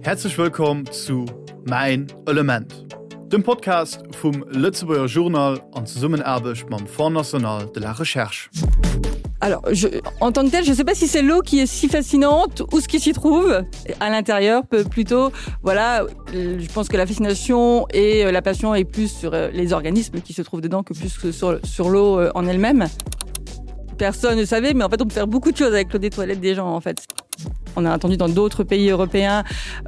Häerzlech wëllkomm zu Mäin Element, dem Podcast vum Lëtzebuerger Journal an Zesummenaarbecht mam Fonds national de la recherche. Alors, je, en tant que tel, je ne sais pas si c'est l'eau qui est si fascinante ou ce qui s'y trouve à l'intérieur plutôt. Voilà, je pense que la fascination et euh, la passion est plus sur euh, les organismes qui se trouvent dedans que plus que sur, sur l'eau euh, en elle-même. Personne ne savait, mais en fait on peut faire beaucoup de choses avec l'eau des toilettes des gens en fait. On a entendu dans d'autres pays européens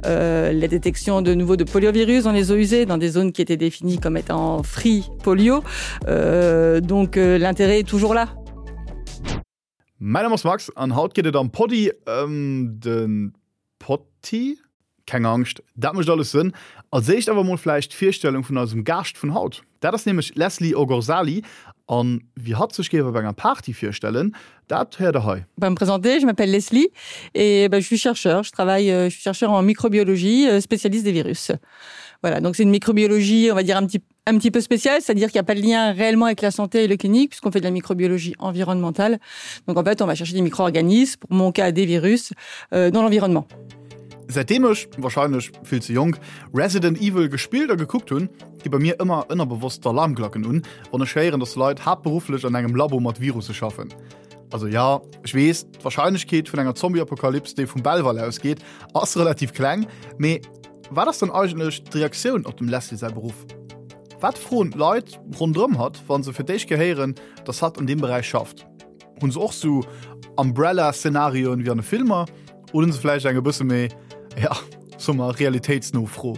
euh, la détection de nouveau de poliovirus dans les eaux usées, dans des zones qui étaient définies comme étant free polio. Euh, donc euh, l'intérêt est toujours là. Mäin Numm ass Max an haut geet et am Poddy ëm de Potti. Keng Angscht, dat mécht alles Sënn. Als éischt awer mol vläicht d'Virstellung vun eisem Gaascht vun haut. Dat ass nämlech d'Leslie Ogorzali an wéi hatt sech géif op enger Party virstellen, dat héiert der hei. Bah, me présenter, je m'appelle Leslie et bah, je suis chercheur, je travaille euh, je suis chercheur en microbiologie, euh, spécialiste des virus. Voilà, donc c'est une microbiologie, on va dire un petit un petit peu spécial, c'est-à-dire qu'il n'y a pas de lien réellement avec la santé et le clinique puisqu'on fait de la microbiologie environnementale. Donc en fait, on va chercher des micro-organismes, pour mon cas des virus euh, dans l'environnement. Säitdeem ech, wahrscheinlech vill ze jonk, Resident Evil gespillt a gekuckt hunn, gi bei mir ëmmer ënnerbewosst d'Alarmglacken un, wann ech héieren, dass Leit haaptberufflech an engem Labo mat Virusse schaffen. Also jo, ech weess, d'Warscheinlechkeet vun enger Zombie-Apokalyps, déi vum Belval ausgeet, ass relativ kleng, mee wat ass dann eigentlech d'Reaktioun op dem Leslie säi Beruff? Wat froen d'Leit ronderëm hatt, wa se fir d'éischt Kéier héieren, dass hatt an deem Beräich schafft? Hunn se och sou Umbrella-Szenarioen wéi an de Filmer oder hunn se vläicht eng e bësse méi, ja, soe mer, realitéitsno Fro?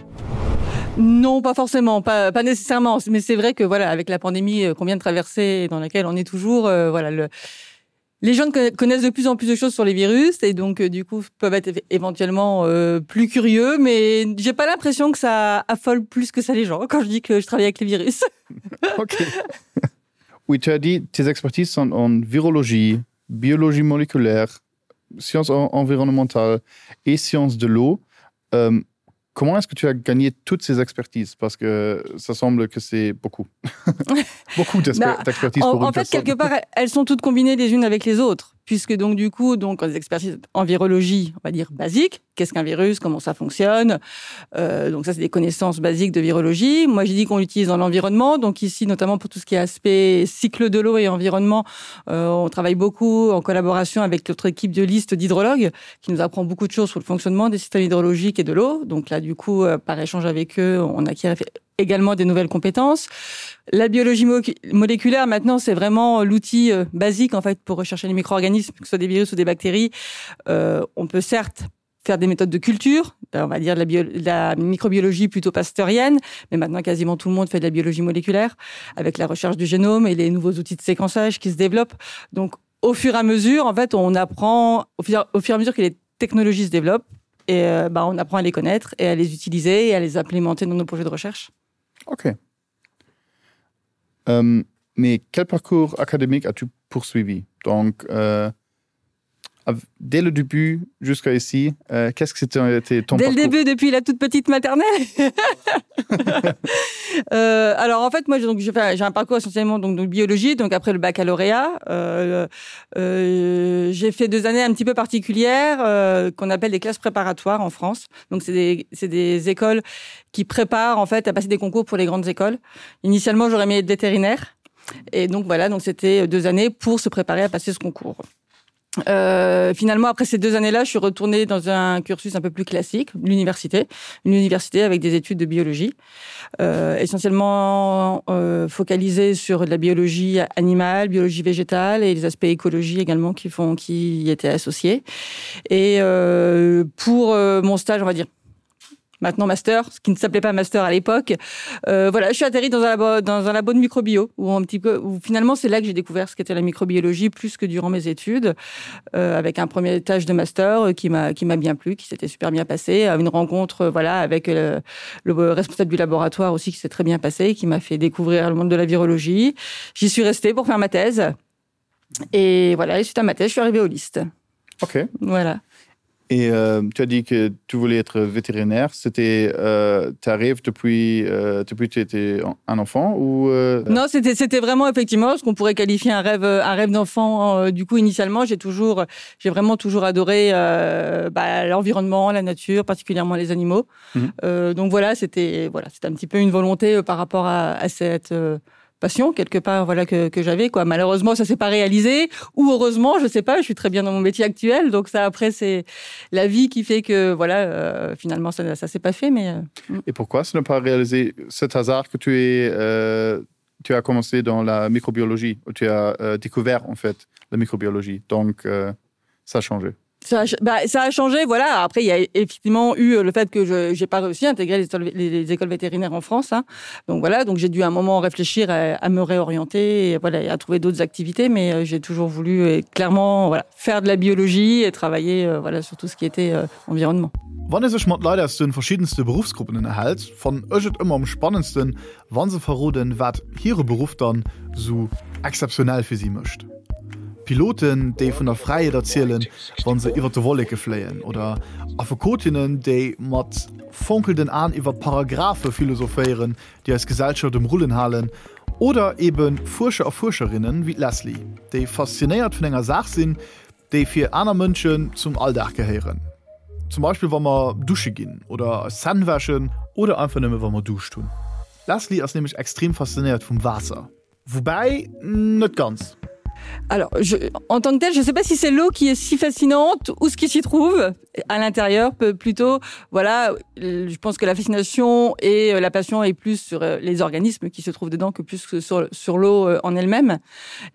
Non, pas forcément, pas, pas nécessairement, mais c'est vrai que voilà, avec la pandémie euh, qu'on vient de traverser et dans laquelle on est toujours, euh, voilà, le, les gens connaissent de plus en plus de choses sur les virus et donc euh, du coup peuvent être éventuellement euh, plus curieux, mais j'ai pas l'impression que ça affole plus que ça les gens quand je dis que je travaille avec les virus. Ok. Oui, tu as dit tes expertises sont en virologie, biologie moléculaire, sciences environnementales et sciences de l'eau. Euh, comment est-ce que tu as gagné toutes ces expertises Parce que ça semble que c'est beaucoup. beaucoup d'expertises en, en fait, quelque part, elles sont toutes combinées les unes avec les autres puisque donc du coup donc les expertises en virologie on va dire basique qu'est-ce qu'un virus comment ça fonctionne euh, donc ça c'est des connaissances basiques de virologie moi j'ai dit qu'on l'utilise dans l'environnement donc ici notamment pour tout ce qui est aspect cycle de l'eau et environnement euh, on travaille beaucoup en collaboration avec notre équipe de liste d'hydrologues qui nous apprend beaucoup de choses sur le fonctionnement des systèmes hydrologiques et de l'eau donc là du coup euh, par échange avec eux on acquiert également des nouvelles compétences. La biologie mo moléculaire maintenant c'est vraiment l'outil euh, basique en fait pour rechercher les micro-organismes, que ce soit des virus ou des bactéries. Euh, on peut certes faire des méthodes de culture, on va dire de la, bio, de la microbiologie plutôt pasteurienne, mais maintenant quasiment tout le monde fait de la biologie moléculaire avec la recherche du génome et les nouveaux outils de séquençage qui se développent. Donc au fur et à mesure en fait on apprend au fur, au fur et à mesure que les technologies se développent et euh, bah, on apprend à les connaître et à les utiliser et à les implémenter dans nos projets de recherche. Ok. Euh, mais quel parcours académique as-tu poursuivi Donc euh, dès le début jusqu'à ici, euh, qu'est-ce que c'était ton Dès parcours le début, depuis la toute petite maternelle euh, Alors en fait, moi j'ai un parcours essentiellement donc, de biologie, donc après le baccalauréat, euh, euh, j'ai fait deux années un petit peu particulières euh, qu'on appelle des classes préparatoires en France. Donc c'est des, des écoles qui préparent en fait à passer des concours pour les grandes écoles. Initialement, j'aurais aimé être vétérinaire. Et donc voilà, donc c'était deux années pour se préparer à passer ce concours. Euh, finalement, après ces deux années-là, je suis retournée dans un cursus un peu plus classique, l'université, une université avec des études de biologie, euh, essentiellement euh, focalisée sur de la biologie animale, biologie végétale et les aspects écologie également qui font qui y étaient associés. Et euh, pour euh, mon stage, on va dire maintenant master, ce qui ne s'appelait pas master à l'époque. Euh, voilà, je suis atterri dans un labo, dans un labo de microbio où un petit peu où finalement c'est là que j'ai découvert ce qu'était la microbiologie plus que durant mes études euh, avec un premier étage de master euh, qui m'a qui m'a bien plu, qui s'était super bien passé, à une rencontre euh, voilà avec le, le responsable du laboratoire aussi qui s'est très bien passé, qui m'a fait découvrir le monde de la virologie. J'y suis restée pour faire ma thèse. Et voilà, et suite à ma thèse, je suis arrivée au liste. Ok. Voilà. Et euh, tu as dit que tu voulais être vétérinaire, c'était euh, ta rêve depuis euh, depuis tu étais un enfant ou euh... Non, c'était c'était vraiment effectivement ce qu'on pourrait qualifier un rêve un rêve d'enfant euh, du coup initialement, j'ai toujours j'ai vraiment toujours adoré euh, bah, l'environnement, la nature, particulièrement les animaux. Mmh. Euh, donc voilà, c'était voilà, c'était un petit peu une volonté euh, par rapport à, à cette euh, passion quelque part voilà que, que j'avais quoi malheureusement ça s'est pas réalisé ou heureusement je sais pas je suis très bien dans mon métier actuel donc ça après c'est la vie qui fait que voilà euh, finalement ça, ça s'est pas fait mais euh, mm. et pourquoi ce n'est pas réalisé cet hasard que tu es euh, tu as commencé dans la microbiologie où tu as euh, découvert en fait la microbiologie donc euh, ça a changé Ça a, bah, ça a changé voilà après il y a effectivement eu euh, le fait que je n'ai pas réussi à intégrer les, les, les écoles vétérinaires en France hein. donc voilà donc j'ai dû à un moment réfléchir à, à me réorienter et, voilà et à trouver d'autres activités mais euh, j'ai toujours voulu et clairement voilà faire de la biologie et travailler euh, voilà sur tout ce qui était euh, environnement. Wann ee sech mat Leit aus de verschiddenste Beruffsgruppen ënnerhält, fannen ech et ëmmer am spannendsten, wa se verroden, wat hire Beruff dann sou exzeptionell fir si mécht. Piloten, déi vun der Fräiheet erzielen, wa se iwwer de Wolleke fléien, oder Affekotinnen, déi mat fonkelnden Aen iwwer Paragraphe philosophéieren, déi eis Gesellschaft um Rullen halen, oder ebe Fuerscher a Fuerscherinnen wéi d'Leslie, déi faszinéiert vun enger Saach sinn, déi fir aner Mënschen zum Alldag gehéieren. Zum Beispill wa mer dusche ginn oder eis Zänn wäschen oder einfach nëmme wa mer Duuscht hunn. D'Leslie ass nämlech extrem faszinéiert vum Waasser. Woubäi, net ganz. Alors, je, en tant que tel, je ne sais pas si c'est l'eau qui est si fascinante ou ce qui s'y trouve à l'intérieur plutôt voilà je pense que la fascination et euh, la passion est plus sur euh, les organismes qui se trouvent dedans que plus que sur, sur l'eau euh, en elle-même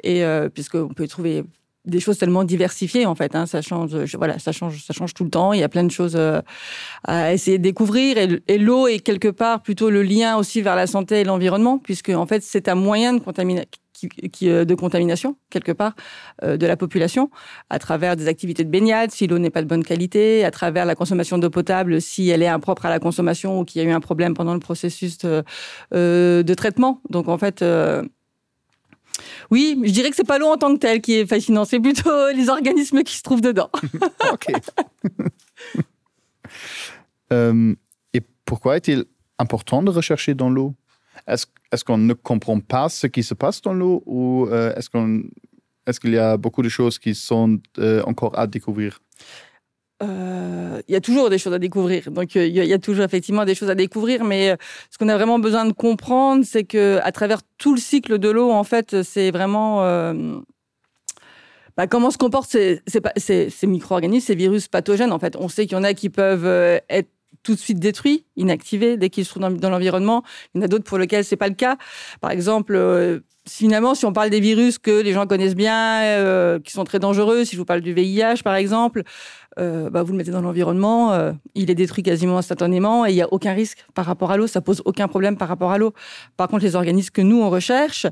et euh, puisqu'on peut y trouver des choses tellement diversifiées en fait hein, ça change je, voilà ça change ça change tout le temps il y a plein de choses euh, à essayer de découvrir et, et l'eau est quelque part plutôt le lien aussi vers la santé et l'environnement puisque en fait c'est un moyen de contamination qui, qui, euh, de contamination quelque part euh, de la population à travers des activités de baignade si l'eau n'est pas de bonne qualité à travers la consommation d'eau potable si elle est impropre à la consommation ou qu'il y a eu un problème pendant le processus de, euh, de traitement donc en fait euh, Oui, je dirais que c'est pas l'eau en tant que tel qui est fascinant, c'est plutôt les organismes qui se trouvent dedans. okay. euh, et pourquoi est-il important de rechercher dans l'eau Est-ce est qu'on ne comprend pas ce qui se passe dans l'eau ou euh, est-ce qu'on est-ce qu'il y a beaucoup de choses qui sont euh, encore à découvrir Euh, il y a toujours des choses à découvrir donc euh, il y, y a toujours effectivement des choses à découvrir mais euh, ce qu'on a vraiment besoin de comprendre c'est que à travers tout le cycle de l'eau en fait c'est vraiment euh, bah, comment se comportent ces, ces, ces, ces micro-organismes ces virus pathogènes en fait on sait qu'il y en a qui peuvent euh, être tout de suite détruits inactivés dès qu'ils se trouvent dans, dans l'environnement il y en a d'autres pour lesquels c'est pas le cas par exemple euh, finalement si on parle des virus que les gens connaissent bien euh, qui sont très dangereux si je vous parle du VIH par exemple euh, bah, vous le mettez dans l'environnement, euh, il est détruit quasiment instantanément et il n'y a aucun risque par rapport à l'eau, ça pose aucun problème par rapport à l'eau. Par contre, les organismes que nous on recherche,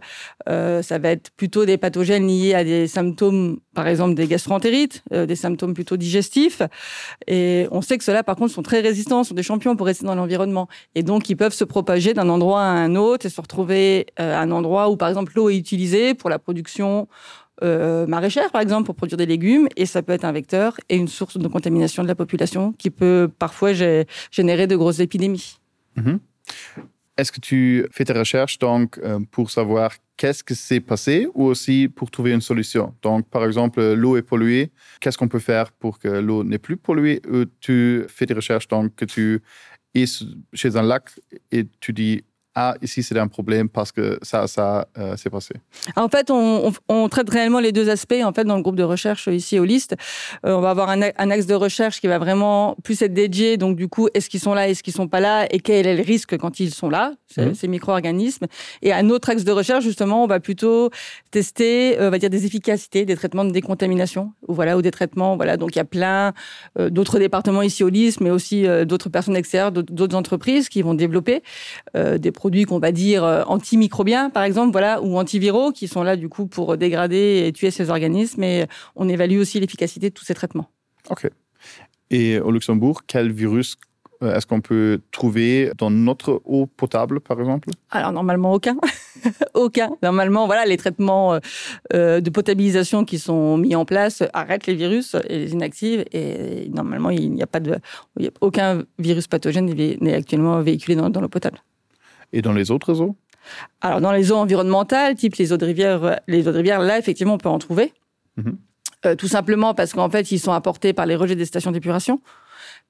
euh, ça va être plutôt des pathogènes liés à des symptômes, par exemple des gastroentérites, euh, des symptômes plutôt digestifs. Et on sait que ceux-là, par contre, sont très résistants, sont des champions pour rester dans l'environnement. Et donc, ils peuvent se propager d'un endroit à un autre et se retrouver euh, à un endroit où, par exemple, l'eau est utilisée pour la production euh, maraîchère, par exemple, pour produire des légumes, et ça peut être un vecteur et une source de contamination de la population qui peut parfois générer de grosses épidémies. Mmh. Est-ce que tu fais tes recherches donc euh, pour savoir qu'est-ce que s'est passé ou aussi pour trouver une solution Donc par exemple l'eau est polluée, qu'est-ce qu'on peut faire pour que l'eau n'est plus polluée ou tu fais des recherches donc que tu es chez un lac et tu dis ah, ici c'est un problème parce que ça ça euh, s'est passé en fait on, on, on traite réellement les deux aspects en fait dans le groupe de recherche ici au liste euh, on va avoir un, un axe de recherche qui va vraiment plus être dédié donc du coup est-ce qu'ils sont là est-ce qu'ils sont pas là et quel est le risque quand ils sont là ces, mmh. ces micro-organismes et un autre axe de recherche justement on va plutôt tester euh, on va dire des efficacités des traitements de décontamination ou voilà ou des traitements voilà donc il y a plein euh, d'autres départements ici au liste mais aussi euh, d'autres personnes extérieures d'autres entreprises qui vont développer euh, des produits qu'on va dire euh, antimicrobiens par exemple voilà ou antiviraux qui sont là du coup pour dégrader et tuer ces organismes et on évalue aussi l'efficacité de tous ces traitements. Ok. Et au Luxembourg, quel virus euh, est-ce qu'on peut trouver dans notre eau potable par exemple Alors normalement aucun. Aucun. Normalement, voilà, les traitements euh, de potabilisation qui sont mis en place arrêtent les virus et les inactivent et normalement il n'y a pas de il y a aucun virus pathogène n'est actuellement véhiculé dans, dans l'eau potable. Et dans les autres eaux Alors dans les eaux environnementales, type les eaux de rivière, les eaux de rivière là effectivement on peut en trouver. Mmh. Euh, tout simplement parce qu'en fait ils sont apportés par les rejets des stations d'épuration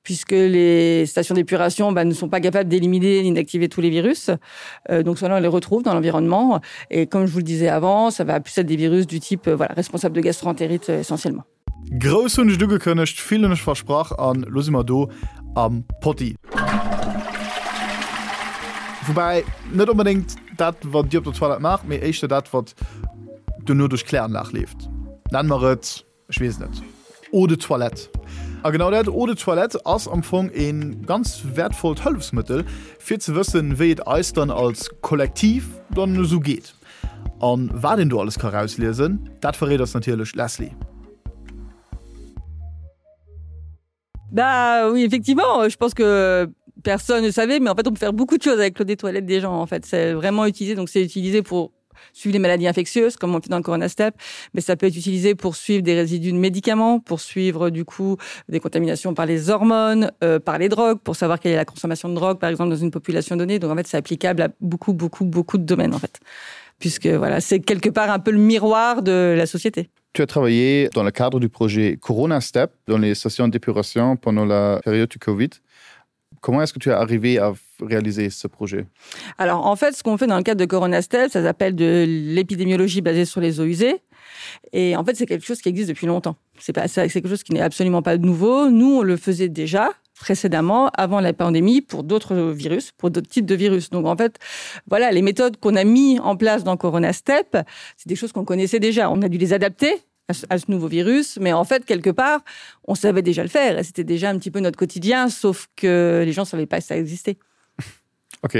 puisque les stations d'épuration bah, ne sont pas capables d'éliminer ni d'activer tous les virus. Euh, donc cela on les retrouve dans l'environnement et comme je vous le disais avant, ça va plus être des virus du type euh, voilà, responsable de gastroentérite euh, essentiellement. Grouss hunn ech et ugekënnegt, vill hunn ech versprach an lo si mer do am Potti. Woubäi net onbedéngt dat wat dir op der Toilette maacht, mee éischter dat wat duerno duerch d'Kläranlag leeft. Nenn mer et, ech weess net, Eau de toilette. A genau dat Eau de toilette ass am Fong e ganz wäertvollt Hëllefsmëttel fir ze wëssen, wéi et eis dann als Kollektiv dann esou geet. An wat een do alles ka rausliesen, dat verréit eis natierlech d'Leslie. Bah oui, effectivement, je pense que personne ne savait, mais en fait on peut faire beaucoup de choses avec l'eau des toilettes des gens en fait. C'est vraiment utilisé, donc c'est utilisé pour suivre les maladies infectieuses comme on fait dans le coronastep mais ça peut être utilisé pour suivre des résidus de médicaments pour suivre du coup des contaminations par les hormones euh, par les drogues pour savoir quelle est la consommation de drogue par exemple dans une population donnée donc en fait c'est applicable à beaucoup beaucoup beaucoup de domaines en fait puisque voilà c'est quelque part un peu le miroir de la société Tu as travaillé dans le cadre du projet Corona Step dans les stations d'épuration pendant la période du Covid. Comment est-ce que tu es arrivé à réaliser ce projet Alors en fait, ce qu'on fait dans le cadre de Corona Step, ça s'appelle de l'épidémiologie basée sur les eaux usées. Et en fait, c'est quelque chose qui existe depuis longtemps. C'est pas c'est quelque chose qui n'est absolument pas nouveau. Nous, on le faisait déjà précédemment avant la pandémie pour d'autres virus, pour d'autres types de virus. Donc en fait, voilà les méthodes qu'on a mis en place dans Corona Step, c'est des choses qu'on connaissait déjà. On a dû les adapter à ce, à ce nouveau virus, mais en fait quelque part, on savait déjà le faire et c'était déjà un petit peu notre quotidien, sauf que les gens savaient pas que ça existait. Ok.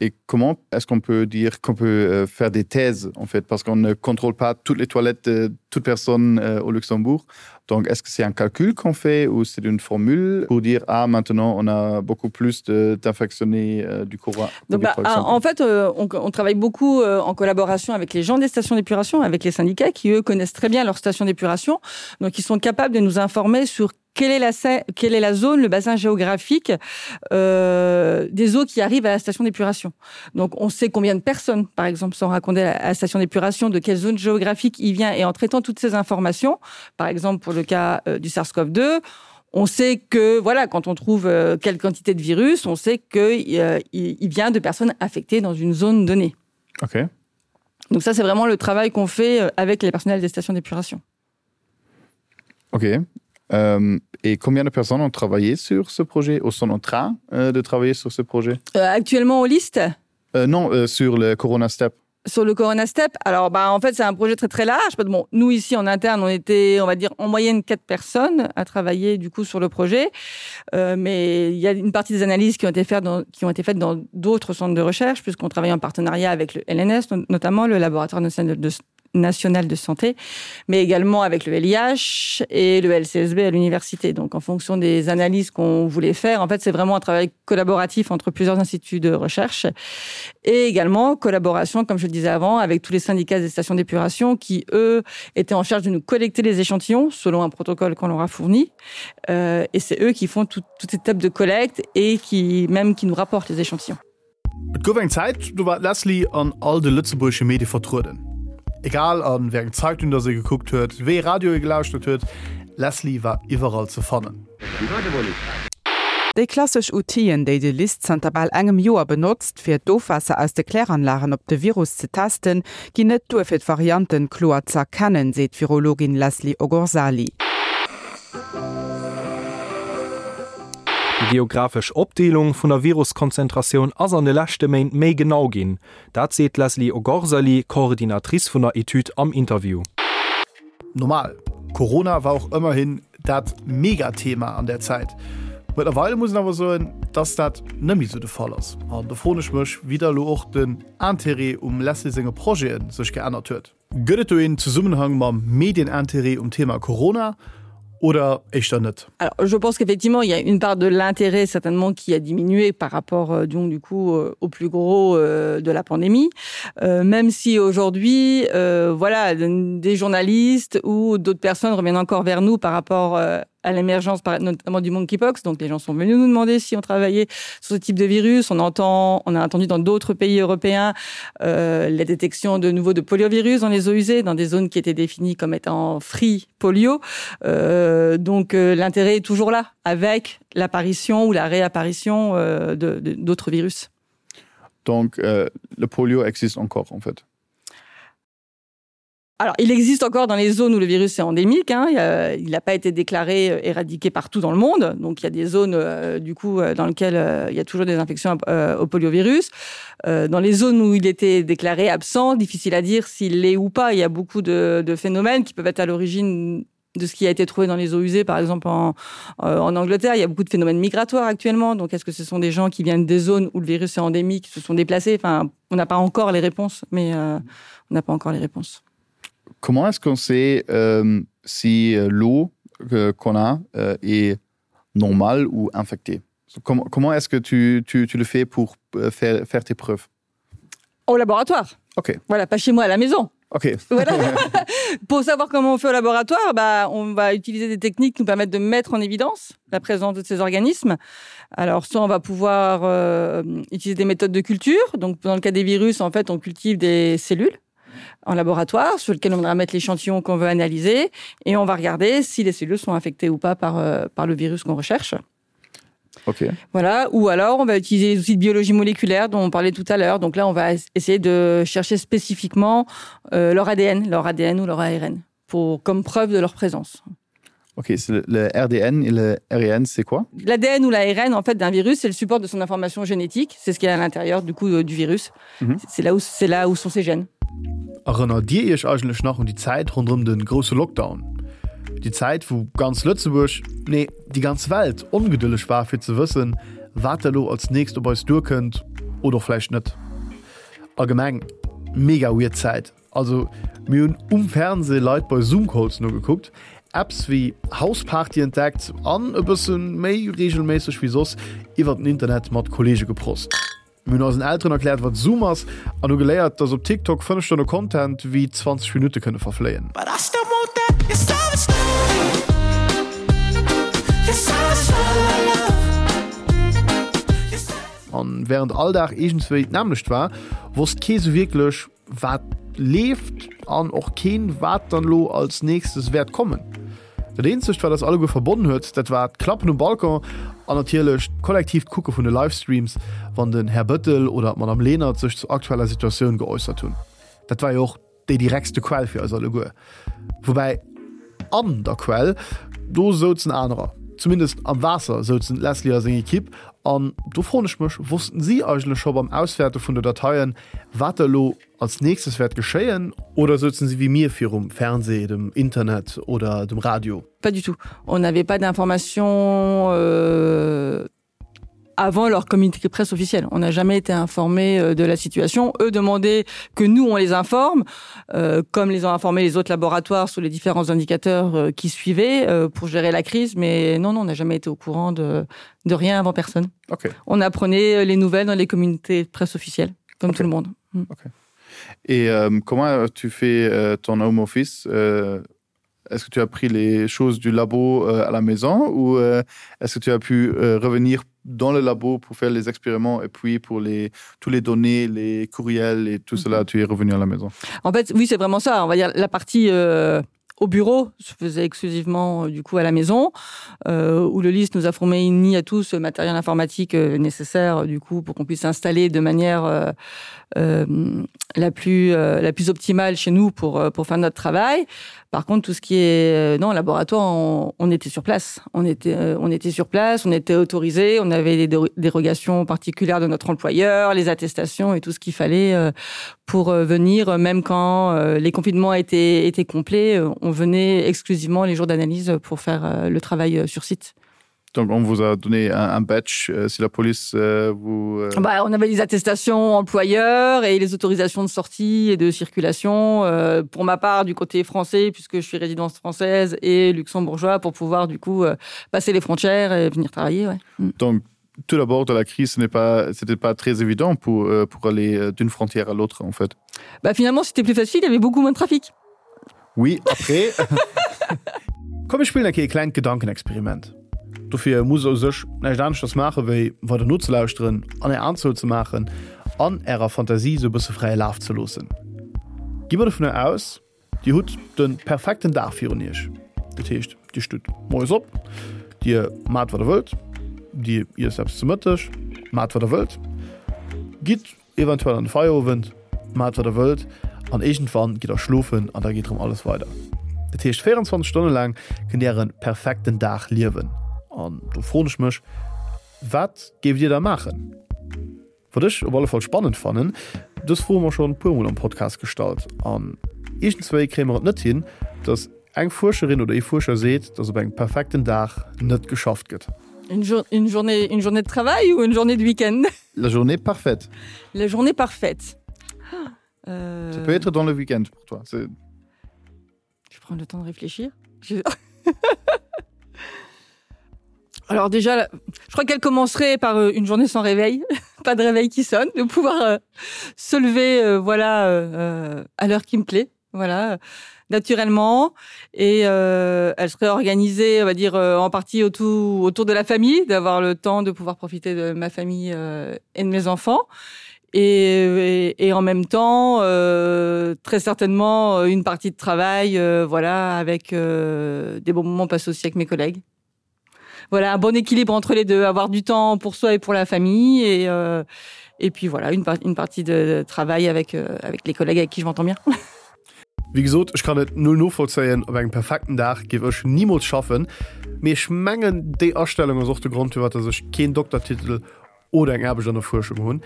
Et comment est-ce qu'on peut dire qu'on peut euh, faire des thèses en fait parce qu'on ne contrôle pas toutes les toilettes de toute personne euh, au Luxembourg. Donc est-ce que c'est un calcul qu'on fait ou c'est une formule pour dire ah maintenant on a beaucoup plus d'infectionnés euh, du courant Donc, bah, en fait euh, on, on travaille beaucoup euh, en collaboration avec les gens des stations d'épuration, avec les syndicats qui eux connaissent très bien leur station d'épuration. Donc ils sont capables de nous informer sur quelle est la, quelle est la zone, le bassin géographique euh, des eaux qui arrivent à la station d'épuration. Donc on sait combien de personnes, par exemple, sont raccordées à la station d'épuration, de quelle zone géographique il vient et en traitant toutes ces informations, par exemple pour le cas euh, du SARS-CoV-2, on sait que voilà quand on trouve euh, quelle quantité de virus, on sait qu'il euh, il vient de personnes affectées dans une zone donnée. Ok. Donc ça c'est vraiment le travail qu'on fait euh, avec les personnels des stations d'épuration. Ok. Euh, et combien de personnes ont travaillé sur ce projet ou sont en train euh, de travailler sur ce projet euh, Actuellement au liste euh, Non, euh, sur le Corona Step. Sur le Corona Step Alors bah, en fait c'est un projet très très large. Bon, nous ici en interne on était on va dire en moyenne quatre personnes à travailler du coup sur le projet. Euh, mais il y a une partie des analyses qui ont été faites dans, qui ont été faites dans d'autres centres de recherche puisqu'on travaille en partenariat avec le LNS notamment le laboratoire national de nationale de santé, mais également avec le LIH et le LCSB à l'université. Donc en fonction des analyses qu'on voulait faire, en fait c'est vraiment un travail collaboratif entre plusieurs instituts de recherche et également collaboration, comme je le disais avant, avec tous les syndicats des stations d'épuration qui, eux, étaient en charge de nous collecter les échantillons selon un protocole qu'on leur a fourni. Euh, et c'est eux qui font tout, toute cette étape de collecte et qui même qui nous rapportent les échantillons. Et gouf eng Zäit, do war d'Leslie an all de lëtzebuergesche Medie vertrueden. Egal a wéi eng Zeitung dass ee gekuckt huet, wéi ee Radio ee gelauschtert huet, d'Leslie war iwwerall ze fannen. Déi klassesch Outiller, déi de LIST zanter bal engem Joer benotzt, fir d'Ofwaasser aus de Kläranlagen op de Virus ze testen, ginn net duer fir d'Varianten kloer z'erkennen, seet d'Virologin Leslie Ogorzali. Déi geographesch Opdeelung vun der Viruskonzentratioun ass an de leschte Méint méi genau ginn. Dat seet d'Leslie Ogorzali, Coordinatrice vun der Etüd am Interview. Normal, Corona war och ëmmerhin dat Megathema an där Zäit. Mëttlerweile muss een awer soen, dass dat net méi sou de Fall ass. An do froen ech mech, wéi da elo och den Interêt um Leslie senge Projete sech geännert huet. Gëtt et do een Zesummenhang mam Medienintérêt um Thema Corona? Oder éischter net? Alors, je pense qu'effectivement il y a une part de l'intérêt certainement qui a diminué par rapport euh, donc du coup euh, au plus gros euh, de la pandémie euh, même si aujourd'hui euh, voilà des journalistes ou d'autres personnes reviennent encore vers nous par rapport euh, à l'émergence notamment du monkeypox donc les gens sont venus nous demander si on travaillait sur ce type de virus on entend on a entendu dans d'autres pays européens euh, la détection de nouveau de poliovirus dans les eaux usées dans des zones qui étaient définies comme étant free polio euh, donc euh, l'intérêt est toujours là avec l'apparition ou la réapparition euh, d'autres virus donc euh, le polio existe encore en fait Alors, il existe encore dans les zones où le virus est endémique hein, il n'a pas été déclaré euh, éradiqué partout dans le monde donc il y a des zones euh, du coup euh, dans lesquelles euh, il y a toujours des infections euh, au poliovirus euh, dans les zones où il était déclaré absent difficile à dire s'il l'est ou pas il y a beaucoup de, de phénomènes qui peuvent être à l'origine de ce qui a été trouvé dans les eaux usées par exemple en, euh, en Angleterre il y a beaucoup de phénomènes migratoires actuellement donc est-ce que ce sont des gens qui viennent des zones où le virus est endémique qui se sont déplacés enfin on n'a pas encore les réponses mais euh, on n'a pas encore les réponses Comment est-ce qu'on sait euh, si euh, l'eau euh, qu'on a euh, est normale ou infectée Comment, comment est-ce que tu, tu, tu le fais pour euh, faire, faire tes preuves Au laboratoire. Ok. Voilà, pas chez moi à la maison. Ok. Voilà. pour savoir comment on fait au laboratoire, bah, on va utiliser des techniques qui nous permettent de mettre en évidence la présence de ces organismes. Alors soit on va pouvoir euh, utiliser des méthodes de culture. Donc dans le cas des virus, en fait, on cultive des cellules en laboratoire sur lequel on va mettre l'échantillon qu'on veut analyser et on va regarder si les cellules sont infectées ou pas par, euh, par le virus qu'on recherche. Okay. Voilà ou alors on va utiliser les outils de biologie moléculaire dont on parlait tout à l'heure donc là on va essayer de chercher spécifiquement euh, leur ADN leur ADN ou leur ARN pour comme preuve de leur présence. Ok, le, le RDN et le RN c'est quoi L'ADN ou l'ARN en fait d'un virus c'est le support de son information génétique c'est ce qui est à l'intérieur du coup euh, du virus mm -hmm. c'est là où c'est là où sont ses gènes. Erënnert Dir Iech eigentlech nach un déi Zäit ronderëm de grousse Lockdown? Déi Zäit, wou ganz Lëtzebuerg, nee, déi ganz Welt ongedëlleg war fir ze wëssen, wat elo als nächst op eis duerkënnt oder och vläicht net. Allgemeng mega weird Zäit. Also mir hunn um Fernseh Leit bei Zoom-Calls nogekuckt, Apps wéi Houseparty entdeckt an e bësse méi reegelméisseg wéi soss iwwert den Internet mat Kolleege geprost. Mir hunn eisen Elteren erkläert, wat Zoom ass an hu geléiert, dass op TikTok 5 Stonne Content wéi 20 Minutte kënne verfléien. An wärend all Dag iergendswéi d'nämmlecht war, wosst kee sou wierklech, wat leeft an och keen, wat dann elo als nächstes wäert kommen. Dat eenzegt, wat eis alleguer verbonnen huet, dat war d'Klappen um Balcon an natierlech d'kollektiivt Kucke vun de Livestreams, wann den Här Bëttel oder d'Madame Lenert sech zur aktueller Situatioun geäussert hunn. Dat war jo och déi direktste Quell fir eis alleguer. Woubäi an der Quell, do souzen anerer. Zumindest am Waasser souzen d'Leslie a seng Ekipp. An do froen ech mech, wossten si eigentlech scho beim Auswäerte vun de Dateien, wat elo als nächstes wäert geschéien? Oder souzen si wéi mir virum Fernseh, dem Internet oder dem Radio? Pas du tout. On n'avait pas d'informations euh, avant leur communiqué presse officiel. On n'a jamais été informé euh, de la situation. Eux demandaient que nous, on les informe, euh, comme les ont informé les autres laboratoires sur les différents indicateurs euh, qui suivaient euh, pour gérer la crise. Mais non, non on n'a jamais été au courant de, de rien avant personne. Okay. On apprenait euh, les nouvelles dans les communautés de presse officielles, comme okay. tout le monde. Mm. Okay. Et euh, comment tu fais euh, ton home office euh, Est-ce que tu as pris les choses du labo euh, à la maison ou euh, est-ce que tu as pu euh, revenir dans le labo pour faire les expériments et puis pour les tous les données, les courriels et tout mm -hmm. cela tu es revenu à la maison En fait oui c'est vraiment ça on va dire la partie euh au bureau se faisait exclusivement euh, du coup à la maison euh, où le liste nous a formé ni à tous le matériel informatique euh, nécessaire du coup pour qu'on puisse s'installer de manière euh, euh, la plus euh, la plus optimale chez nous pour euh, pour faire notre travail par contre tout ce qui est euh, non laboratoire on, on était sur place on était euh, on était sur place on était autorisé on avait des dérogations particulières de notre employeur les attestations et tout ce qu'il fallait euh, pour euh, venir même quand euh, les confinements étaient étaient complets on venait exclusivement les jours d'analyse pour faire euh, le travail euh, sur site. Donc on vous a donné un, un badge euh, si la police euh, vous euh... bah, on avait les attestations employeurs et les autorisations de sortie et de circulation euh, pour ma part du côté français puisque je suis résidence française et luxembourgeois pour pouvoir du coup euh, passer les frontières et venir travailler ouais. Mm. Donc tout d'abord de la crise ce n'est pas c'était pas très évident pour euh, pour aller euh, d'une frontière à l'autre en fait. Bah finalement c'était plus facile, il y avait beaucoup moins de trafic. Oui après Komm mir spillen eng Kéier e klengt Gedankenexperiment. Dofir musst der u sech näischt aneschters maache wéi weider nozelauschteren an är Aen zouzemaachen an ärer Fantasie sou e bësse fräie Laf ze loossen. Gi mer dovunner aus, dir hutt de perfekten Dag virun iech. Dat heescht, dir stutt moies op, dir maacht wat der wëllt, dir iesst eppes zu Mëtteg, maacht wat der wëllt, gitt Eventuell an de Feierowend, maacht wat der wëllt an iergendwann gitt der schlofen an da geet erëm alles weider. Dat heescht 24 Stonne laang kënnt dir äre perfekten Dag liewen. An do froen ech mech, wat géift dir da maachen? Wat ech op alle Fall spannend fannen, dës Fro hu mer schonn e puer mol am Podcast gestallt an iergendswéi kréie mer et net hin, dass eng Fuerscherin oder ee Fuerscher seet, dass op engem perfekten Dag net geschafft gëtt. Une journée, une journée de travail ou une journée de week-end? La journée parfaite. La journée parfaite. Euh... Ça peut être dans le week-end pour toi. Je prends le temps de réfléchir. Je... Alors déjà, je crois qu'elle commencerait par euh, une journée sans réveil, pas de réveil qui sonne, de pouvoir euh, se lever euh, voilà euh, euh, à l'heure qui me plaît voilà naturellement et euh, elle serait organisée on va dire euh, en partie autour autour de la famille d'avoir le temps de pouvoir profiter de ma famille euh, et de mes enfants et, et, et en même temps euh, très certainement euh, une partie de travail euh, voilà avec euh, des bons moments passés aussi avec mes collègues voilà un bon équilibre entre les deux avoir du temps pour soi et pour la famille et euh, et puis voilà une, une partie de travail avec euh, avec les collègues avec qui je m'entends bien. Wéi gesot, ech kann et null novollzéien, op engem perfekten Dag géif ech nimools schaffen, mee ech mengen déi Astellung ass och de Grond firwat dass ech keen Doktertitel oder eng Aarbecht an der Fuerschung hunn.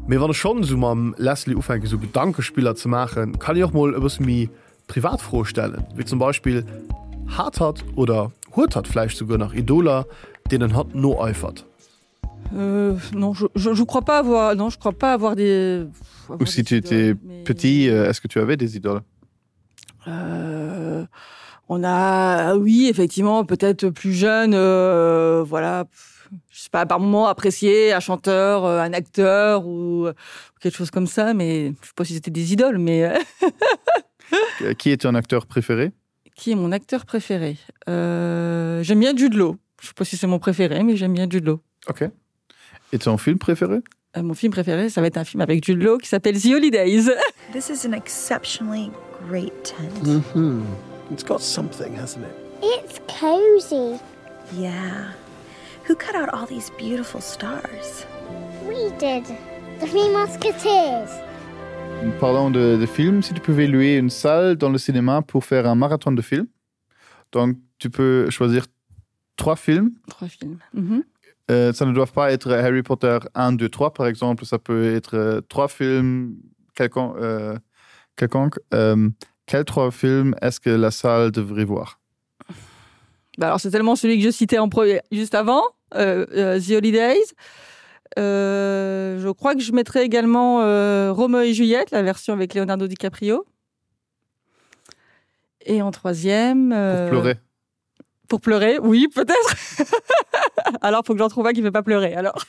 Mee wann ech schonn esou mam Leslie ufänken esou Gedankespiller ze maachen, kann ech och mol e bësse méi privat Froe stellen, wéi zum Beispill, Hat hatt oder huet hatt vläicht souguer nach Idoler, deenen hatt noeifert? Euh, non, je, je, je crois pas avoir non je crois pas avoir des avoir ou si des tu étais mais... petit euh, est-ce que tu avais des idoles euh, on a oui effectivement peut-être plus jeune euh, voilà je sais pas par moment apprécié un chanteur euh, un acteur ou quelque chose comme ça mais je sais pas si c'était des idoles mais euh, qui est ton acteur préféré qui est mon acteur préféré euh, j'aime bien Jude Law je sais pas si c'est mon préféré mais j'aime bien Jude Law ok et ton film préféré euh, mon film préféré ça va être un film avec Jude Law qui s'appelle The Holidays this is an exceptionally great tent mm -hmm. it's got something hasn't it it's cozy yeah who cut out all these beautiful stars we did the three musketeers Parlant de, de films, si tu pouvais louer une salle dans le cinéma pour faire un marathon de films, donc tu peux choisir trois films. Trois films. Mm -hmm. euh, ça ne doit pas être Harry Potter 1, 2, 3 par exemple, ça peut être euh, trois films quelconque. Euh, quelconque. Euh, quels trois films est-ce que la salle devrait voir bah alors c'est tellement celui que je citais en premier juste avant euh, euh, The Holidays. Euh, je crois que je mettrai également euh, Romeo et Juliette, la version avec Leonardo DiCaprio. Et en troisième euh, pour pleurer. Pour pleurer, oui, peut-être. alors faut que j'en trouve un qui ne fait pas pleurer alors.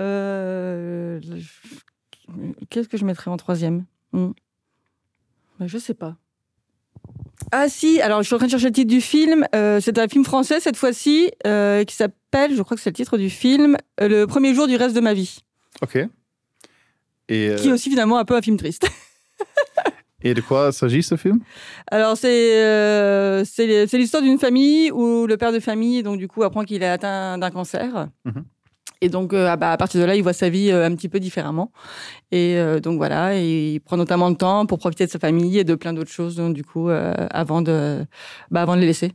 euh, Qu'est-ce que je mettrais en troisième hmm. Ben, je sais pas. Ah si, alors je suis en train de chercher le titre du film. Euh, c'est un film français cette fois-ci euh, qui s'appelle, je crois que c'est le titre du film, euh, le premier jour du reste de ma vie. Ok. Et euh... Qui est aussi finalement un peu un film triste. Et de quoi s'agit ce film Alors c'est euh, l'histoire d'une famille où le père de famille donc du coup apprend qu'il est atteint d'un cancer. Mm -hmm. Et donc euh, ah bah, à partir de là, il voit sa vie euh, un petit peu différemment. Et euh, donc voilà, et il prend notamment le temps pour profiter de sa famille et de plein d'autres choses donc, du coup euh, avant de bah, avant de les laisser.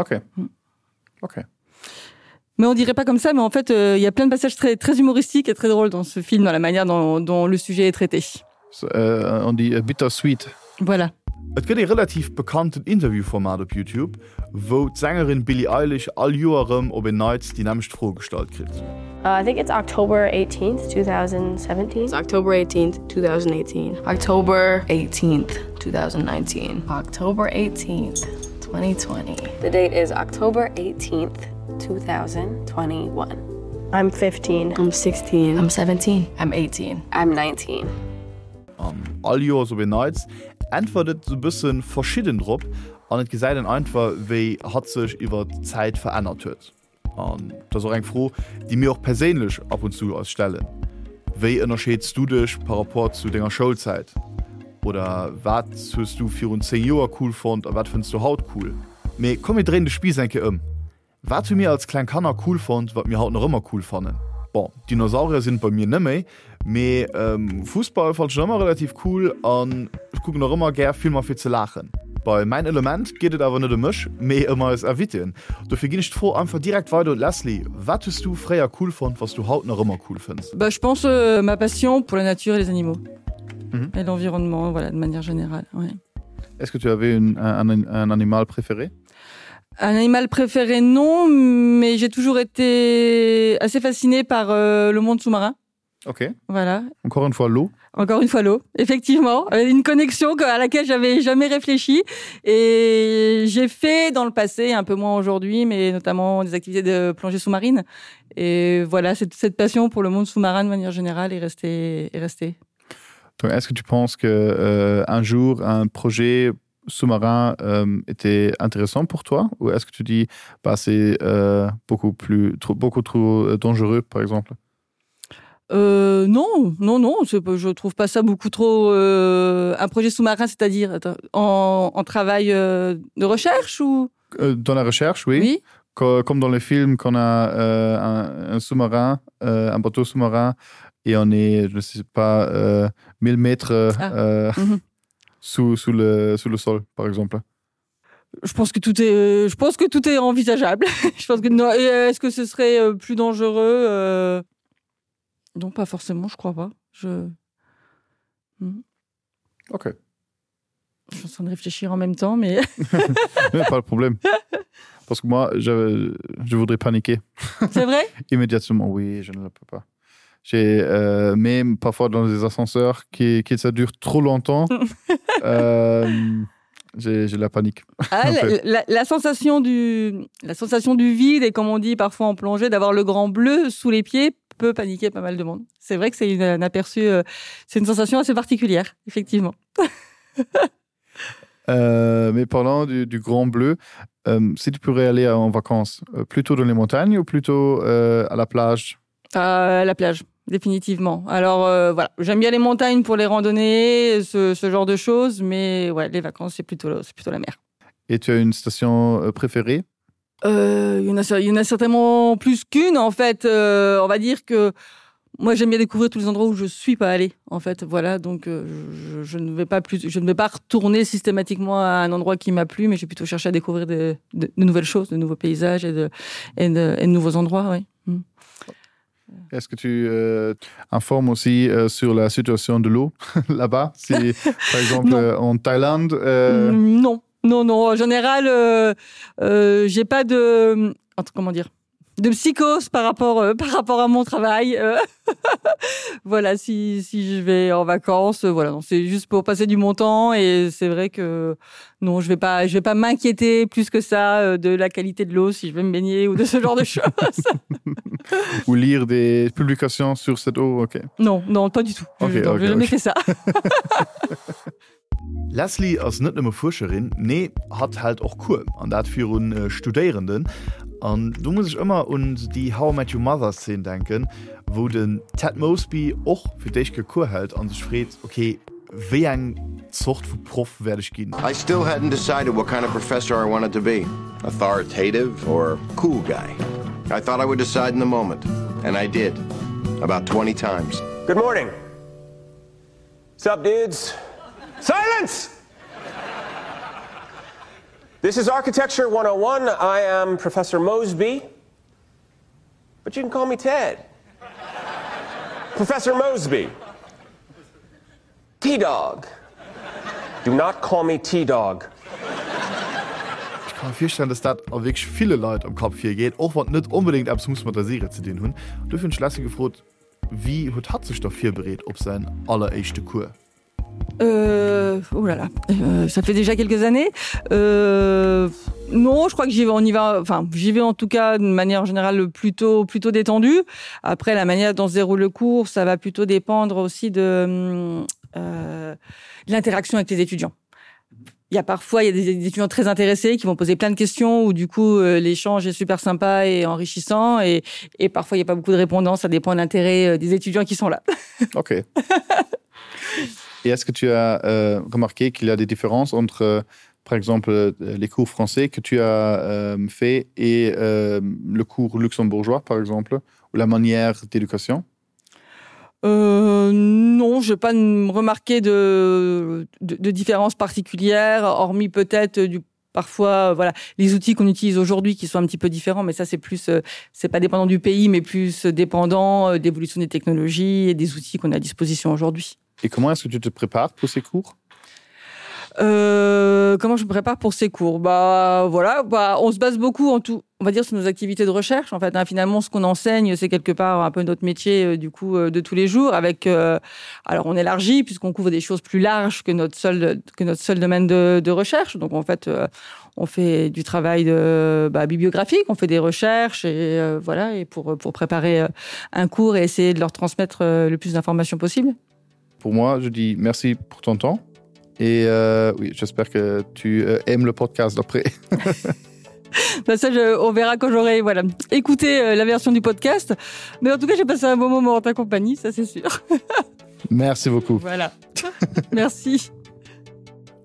Ok. Mm. Ok. Mais on dirait pas comme ça, mais en fait euh, il y a plein de passages très très humoristiques et très drôles dans ce film dans la manière dont, dont le sujet est traité. Euh, on dit euh, bittersweet. Voilà. Et gëtt ee relativ bekannten Interviewformat op Youtube. wou d'Sängerin Billie Eilish all Joer erëm op en Neits déi nämmlecht Fro gestallt kritt. I think it's October 18th, 2017. October 18th, 2018. October 18th, 2019. October 18th, 2020. The date is October 18th, 2021. I'm 15. I'm 16. I'm 17. I'm 18. I'm 19. An all Joers op en Neits äntwert et sou bëssen verschidden drop an et gesäit een einfach wéi hatt sech iwwert d'Zäit verännert huet. An dat ass och eng Fro déi mir och perséinlech ab und zu eis stellen, Wéi ënnerscheeds du dech par rapport zu denger Schoulzäit? Oder wat hues du virun 10 Joer cool fonnt a wat fënns du haut cool? Mee komm mir dréinen de Spiiss eng Kéier ëm. Wat hu mir als kleng Kanner cool fonnt, wat mir haut nach ëmmer cool fannen? Bon, Dinosaurier sinn et bei mir net méi, mee Fussball fannt ech nach ëmmer relativ cool an ech kucken och ëmmer gär Filmer fir ze laachen. Bei Mäin Element geet et awer net ëm mech, mee ëm eis Invitéen. Dofir ginn ech d'Fro einfach direkt weider un d'Leslie, Wat hues du fréier cool fonnt, wat s du haut nach ëmmer cool fënns? Bah, je pense ma passion pour la nature et les animaux et l'environnement, voilà, de manière générale, ouais. Est-ce que tu avais une, un, un animal préféré? Un animal préféré non, mais j'ai toujours été assez fascinée par euh, le monde sous-marin. Ok. Voilà. Encore une fois l'eau. Encore une fois l'eau, effectivement, euh, une connexion à laquelle j'avais jamais réfléchi et j'ai fait dans le passé un peu moins aujourd'hui, mais notamment des activités de plongée sous-marine et voilà cette, cette passion pour le monde sous-marin de manière générale est restée est restée. Est-ce que tu penses que euh, un jour un projet sous-marin euh, était intéressant pour toi ou est-ce que tu dis bah, c'est euh, beaucoup plus trop, beaucoup trop euh, dangereux par exemple euh, non non non je trouve pas ça beaucoup trop euh, un projet sous-marin c'est-à-dire en, en travail euh, de recherche ou euh, dans la recherche oui, oui. comme dans les films qu'on a euh, un, un sous-marin euh, un bateau sous-marin et on est je ne sais pas euh, 1000 mètres ah. euh, mm -hmm. sous, sous, le, sous le sol, par exemple Je pense que tout est, je pense que tout est envisageable. je pense que non. Euh, est-ce que ce serait euh, plus dangereux euh... Non, pas forcément, je crois pas. Je... Hmm. Ok. Je suis en train de réfléchir en même temps, mais. mais pas de problème. Parce que moi, je, je voudrais paniquer. C'est vrai Immédiatement, oui, je ne le peux pas. J'ai euh, même parfois dans des ascenseurs qui, qui ça dure trop longtemps. euh, j'ai la panique. Ah, la, la, la, sensation du, la sensation du vide et comme on dit parfois en plongée, d'avoir le grand bleu sous les pieds peut paniquer pas mal de monde. C'est vrai que c'est un aperçu, euh, c'est une sensation assez particulière, effectivement. euh, mais parlant du, du grand bleu, euh, si tu pourrais aller en vacances, euh, plutôt dans les montagnes ou plutôt euh, à la plage euh, À la plage définitivement. Alors euh, voilà, j'aime bien les montagnes pour les randonnées, ce, ce genre de choses, mais ouais, les vacances c'est plutôt, plutôt la mer. Et tu as une station euh, préférée euh, il, y en a, il y en a certainement plus qu'une en fait. Euh, on va dire que moi j'aime bien découvrir tous les endroits où je suis pas allée en fait voilà donc euh, je, je ne vais pas plus je ne vais pas retourner systématiquement à un endroit qui m'a plu mais j'ai plutôt cherché à découvrir de, de, de nouvelles choses de nouveaux paysages et de, et de, et de nouveaux endroits oui. Mm. Est-ce que tu euh, informes aussi euh, sur la situation de l'eau là-bas si par exemple euh, en Thaïlande euh... Mm, non non non en général euh, euh, j'ai pas de comment dire de psychose par rapport euh, par rapport à mon travail euh, voilà si, si je vais en vacances euh, voilà c'est juste pour passer du mon temps et c'est vrai que non je vais pas je vais pas m'inquiéter plus que ça euh, de la qualité de l'eau si je vais me baigner ou de ce genre de choses ou lire des publications sur cette eau ok non non pas du tout okay, je, non, okay, jamais okay. fait ça Leslie ass net nëmme Fuerscherin, nee, hatt hält och Cours, an dat virun Studéierenden. An do muss ech ëmmer un déi How I Met Your Mother Szene denken, wou den Ted Mosby och fir d'éischt Kéier Cours hält an sech freet, ok, wéi eng Zort vu Proff wäert ech ginn? I still hadn't decided what kind of professor I wanted to be, authoritative or cool guy. I thought I would decide in the moment, and I did, about 20 times. Good morning. Sup, dudes? Silence! This is Architecture 101. I am Professor Mosby, but you can call me Ted. Professor Mosby. T-Dog. Do not call me T-Dog. Ech Ka mir virstellen, dass dat a wierklech ville Leit am Kapp virgeet, och wann et net onbedéngt eppes muss mat der Serie ze dinn hunn. Dofir hunn ech d'Leslie gefrot, wéi huet hatt sech da virbereet op säin alleréischte Cours? Euh, oh là là, euh, ça fait déjà quelques années. Euh, non, je crois que j'y vais, on y va, enfin, j'y vais en tout cas d'une manière générale plutôt, plutôt détendue. Après, la manière dont se déroule le cours, ça va plutôt dépendre aussi de, euh, de l'interaction avec les étudiants. Il y a parfois il y a des étudiants très intéressés qui vont poser plein de questions ou du coup euh, l'échange est super sympa et enrichissant et, et parfois il n'y a pas beaucoup de répondants, ça dépend de l'intérêt euh, des étudiants qui sont là. Ok. Et est-ce que tu as euh, remarqué qu'il y a des différences entre euh, par exemple euh, les cours français que tu as euh, fait et euh, le cours luxembourgeois par exemple ou la manière d'éducation? Euh, non, je n'ai pas remarqué de, de, de différence particulière, hormis peut-être du parfois voilà les outils qu'on utilise aujourd'hui qui sont un petit peu différents mais ça c'est plus euh, c'est pas dépendant du pays mais plus dépendant euh, d'évolution des technologies et des outils qu'on a à disposition aujourd'hui. Et comment est-ce que tu te prépares pour ces cours? Euh, comment je me prépare pour ces cours bah voilà bah, on se base beaucoup en tout on va dire sur nos activités de recherche en fait hein, finalement ce qu'on enseigne c'est quelque part un peu notre métier euh, du coup euh, de tous les jours avec euh, alors on élargit puisqu'on couvre des choses plus larges que notre seul que notre seul domaine de, de recherche donc en fait euh, on fait du travail de bah, bibliographique on fait des recherches et euh, voilà et pour pour préparer euh, un cours et essayer de leur transmettre euh, le plus d'informations possible pour moi je dis merci pour ton temps et euh, oui j'espère que tu euh, aimes le podcast après ben ça je, on verra quand j'aurai voilà écouté euh, la version du podcast mais en tout cas j'ai passé un bon moment en ta compagnie ça c'est sûr merci beaucoup voilà merci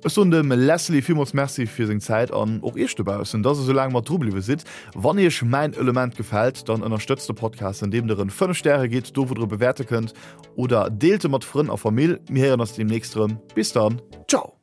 Ech soen dem Leslie villmools Merci fir seng Zäit an och iech dobaussen, dass der sou laang mat dru bliwwe sidd. Wann iech mäin Element gefält, dann ënnerstëtzt de Podcast andeem der en 5 Stäre gitt, do wou der e bewäerte kënnt, oder deelt e mat Frënn a Famill. Mir héieren eis deemnächst erëm. Bis dann, ciao!